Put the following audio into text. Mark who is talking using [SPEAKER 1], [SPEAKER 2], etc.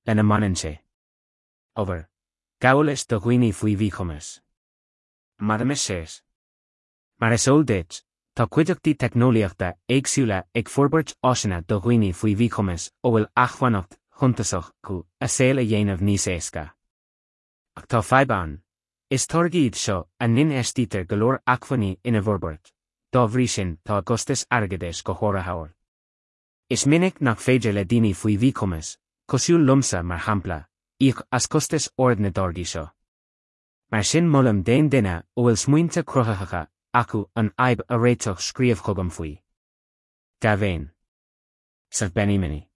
[SPEAKER 1] lena mbaineann sé. Obair, Gabhálais do dhaoine faoi mhíchumas. Mar is eol duit, tá cuideachtaí teicneolaíochta éagsúla ag forbairt áiseanna do dhaoine faoi mhíchumas a bhfuil acmhainneacht shuntasach acu a saol a dhéanamh níos éasca. Ach tá fadhb ann. Is táirgí iad seo a n-infheistítear go leor acmhainní ina bhforbairt, dá bhrí sin tá a gcostas airgeadais go háirithe ard. Is minic nach féidir le daoine faoi mhíchumas, cosúil liomsa mar shampla, íoc as costas ard na dtáirgí seo. Mar sin molaim d'aon duine a bhfuil smaointe cruthaitheacha acu an fhadhb a réiteach scríobh chugam faoi. Dea-mhéin. Sa Benny Mini.